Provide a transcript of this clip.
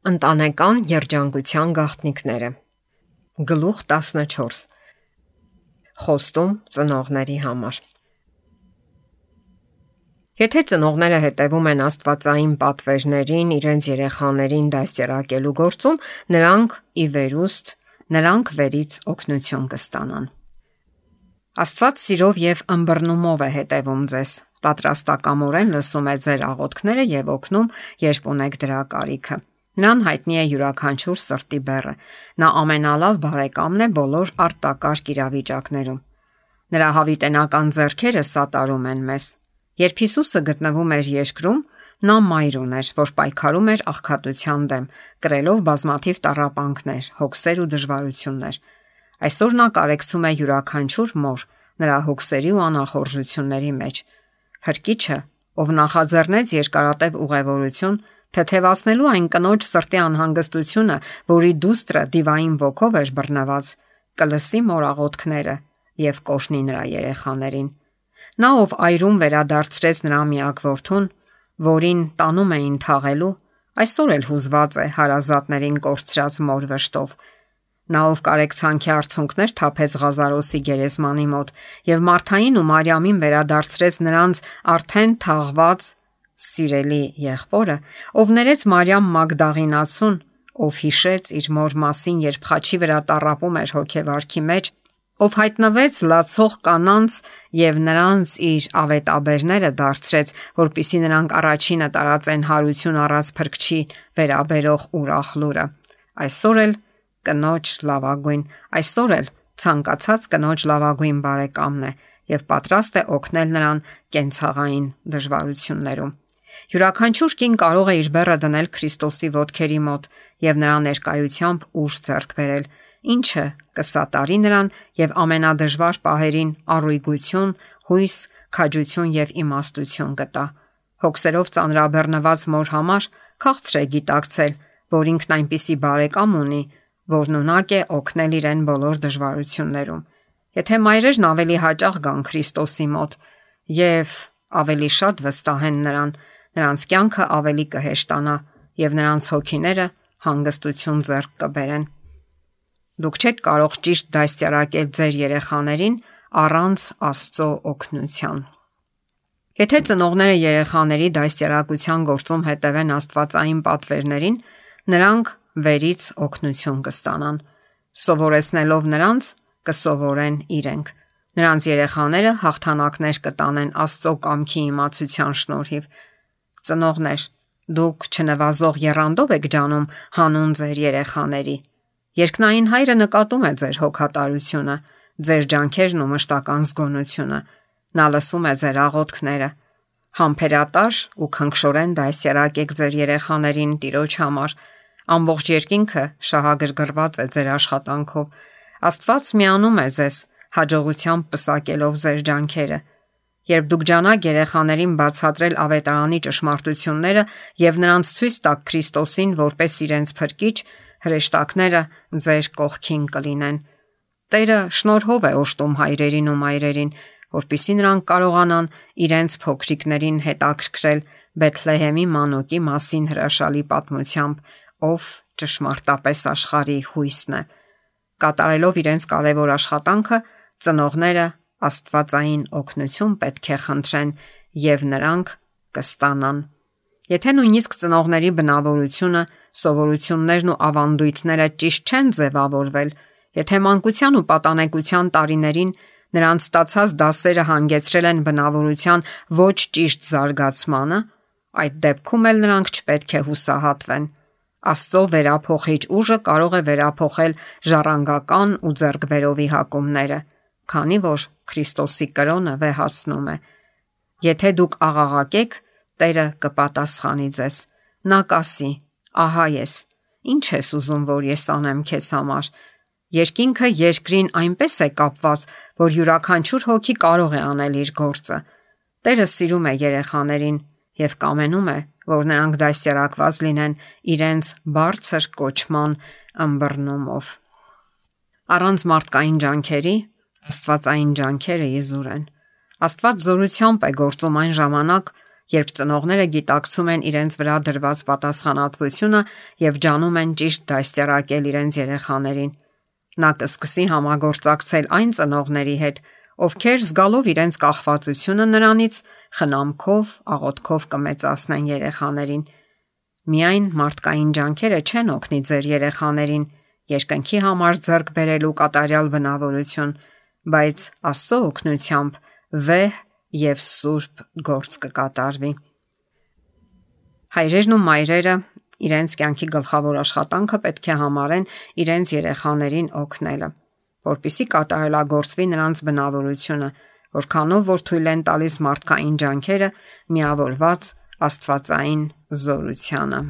Ընտանեկան երջանկության գաղտնիքները։ Գլուխ 14. Խոստում ծնողների համար։ Եթե ծնողները հետևում են աստվածային պատվերներին իրենց երեխաներին դաստիարակելու գործում, նրանք վերից օգնություն կստանան։ Աստված սիրով եւ ըմբռնումով է հետևում ձեզ, պատրաստակամորեն լսում է ձեր աղոթքները եւ օգնում, երբ ունեք դրա կարիքը։ Նրան հայտնի է յուրաքանչյուր սրտի բեռը։ Նա ամենալավ բարեկամն է բոլոր արտակարգ իրավիճակներում։ Նրա հավիտենական ձեռքերը սատարում են մեզ։ Երբ Հիսուսը գտնվում էր երկրում, նա մայր ուներ, որ պայքարում էր աղքատության դեմ, կրելով բազմաթիվ տառապանքներ, հոգսեր ու դժվարություններ։ Այսօր նա կարեկցում է յուրաքանչյուր մոր նրա հոգսերի ու անախորժությունների մեջ։ Փրկիչը, ով նախաձեռնեց երկարատև ուղևորություն, թեթևացնելու այն կնոջ սրտի անհանգստությունը, որի դուստրը դիվային ոգով էր բռնված, կլսի մոր աղոթքները եւ կօրհնի նրա երեխաներին։ Նա, ով այրում վերադարձրեց նրա միակ որդուն, որին տանում էին թաղելու, այսօր էլ հուզված է հարազատներին կորցրած մոր վշտով։ Նա, ով կարեկցանքի արցունքներ թափեց Ղազարոսի գերեզմանի մոտ եւ Մարթային ու Մարիամին վերադարձրեց նրանց արդեն թաղված սիրելի եղբորը, ով ներեց Մարիամ Մագդաղինացուն, ով հիշեց իր մոր մասին, երբ խաչի վրա տառապում էր հոգեվարքի մեջ, ով հայտնվեց լացող կանանց եւ նրանց իր ավետաբերները դարձրեց, որպիսի նրանք առաջինը տարածեն հարություն առած Փրկչի վերաբերող ուրախ լուրը։ Այսօր էլ ցանկացած կնոջ լավագույն բարեկամն է եւ պատրաստ է օգնել նրան կենցաղային դժվարություններում։ Յուրաքանչյուր կին կարող է իր բեռը դնել Քրիստոսի ոտքերի մոտ եւ նրա ներկայությամբ ուժ ձեռք բերել, ինչը կսատարի նրան եւ ամենադժվար պահերին առույգություն, հույս, քաջություն եւ իմաստություն կտա։ Հոգսերով ծանրաբեռնված մոր համար քաղցր է գիտակցել, որ ինքն այնպիսի բարեկամ ունի, որն ունակ է օգնել իրեն բոլոր դժվարություններում։ Եթե մայրերն ավելի հաճախ գան Քրիստոսի մոտ եւ ավելի շատ վստահեն նրան, նրանց կյանքը ավելի կհեշտանա եւ նրանց հոգիները հանգստություն ձեռք կբերեն։ Դուք չեք կարող ճիշտ դաստիարակել ձեր երեխաներին առանց Աստծո օգնության։ Եթե ծնողները երեխաների դաստիարակության գործում հետևեն աստվածային պատվերներին, նրանք վերից օգնություն կստանան։ Սովորեցնելով նրանց, կսովորեն իրենք։ Նրանց երեխաները հաղթանակներ կտանեն Աստծո կամքի իմացության շնորհիվ։ Ծնողներ, դուք չնվազող եռանդով եք ջանում հանուն ձեր երեխաների։ Երկնային Հայրը նկատում է ձեր հոգատարությունը, ձեր ջանքերն ու մշտական զգոնությունը։ Նա լսում է ձեր աղոթքները։ Համբերատար ու քնքշորեն դաստիարակեք ձեր երեխաներին Տիրոջ համար։ Ամբողջ երկինքը շահագրգռված է ձեր աշխատանքով։ Աստված միանում է ձեզ, հաջողությամբ պսակելով ձեր ջանքերը։ Երբ դուք ջանաք երեխաներին բացատրել ավետարանի ճշմարտությունները եւ նրանց ցույց տաք Քրիստոսին որպես իրենց Փրկիչ, հրեշտակները ձեր կողքին կլինեն։ Տերը շնորհով է օժտում հայրերին ու մայրերին, որպեսզի նրանք կարողանան իրենց փոքրիկներին հետաքրքրել Բեթլեհեմի մանուկի մասին հրաշալի պատմությամբ, ով ճշմարտապես աշխարհի հույսն է։ Կատարելով իրենց կարևոր աշխատանքը, ծնողները աստվածային օգնություն պետք է խնդրեն եւ նրանք կստանան։ Եթե նույնիսկ ծնողների բնավորությունը, սովորություններն ու ավանդույթները ճիշտ չեն ձևավորվել, եթե մանկության ու պատանեկության տարիներին նրանց ստացած դասերը հանգեցրել են բնավորության ոչ ճիշտ զարգացմանը, այդ դեպքում էլ նրանք չպետք է հուսահատվեն։ Աստծո վերափոխիչ ուժը կարող է վերափոխել ժառանգական ու ձեռքբերովի հակումները, քանի որ Քրիստոսի կրոնը վեհացնում է։ Եթե դուք աղաղակեք, Տերը կպատասխանի ձեզ։ Նա կասի. «Ահա ես, ինչ ես ուզում, որ ես անեմ քեզ համար»։ Երկինքը երկրին այնպես է կապված, որ յուրաքանչյուր հոգի կարող է անել իր գործը։ Տերը սիրում է երեխաներին եւ կամենում է, որ նրանք դաստիարակված լինեն իրենց բարձր կոչման ըմբռնումով։ Առանց մարդկային ջանքերի աստվածային ջանքերը իզուր են։ Աստված զորությամբ է գործում այն ժամանակ, երբ ծնողները գիտակցում են իրենց վրա դրված պատասխանատվությունը եւ ջանում են ճիշտ դաստիարակել իրենց երեխաներին։ Նա կսկսի համագործակցել այն ծնողների հետ, ովքեր զգալով իրենց կախվածությունը նրանից, խնամքով, աղոթքով կմեծացնեն երեխաներին։ Միայն մարդկային ջանքերը չեն օգնի ձեր երեխաներին երկնքի համար ձեռք բերելու կատարյալ բնավորություն, բայց Աստծո օգնությամբ վեհ եւ սուրբ գործ կկատարվի։ Հայրերն ու մայրերը իրենց կյանքի գլխավոր աշխատանքը պետք է համարեն իրենց երեխաներին օգնելը, որպեսզի կատարելագործվի նրանց բնավորությունը, որքանով որ թույլ են տալիս մարդկային ջանքերը միավորված աստվածային զորությանը։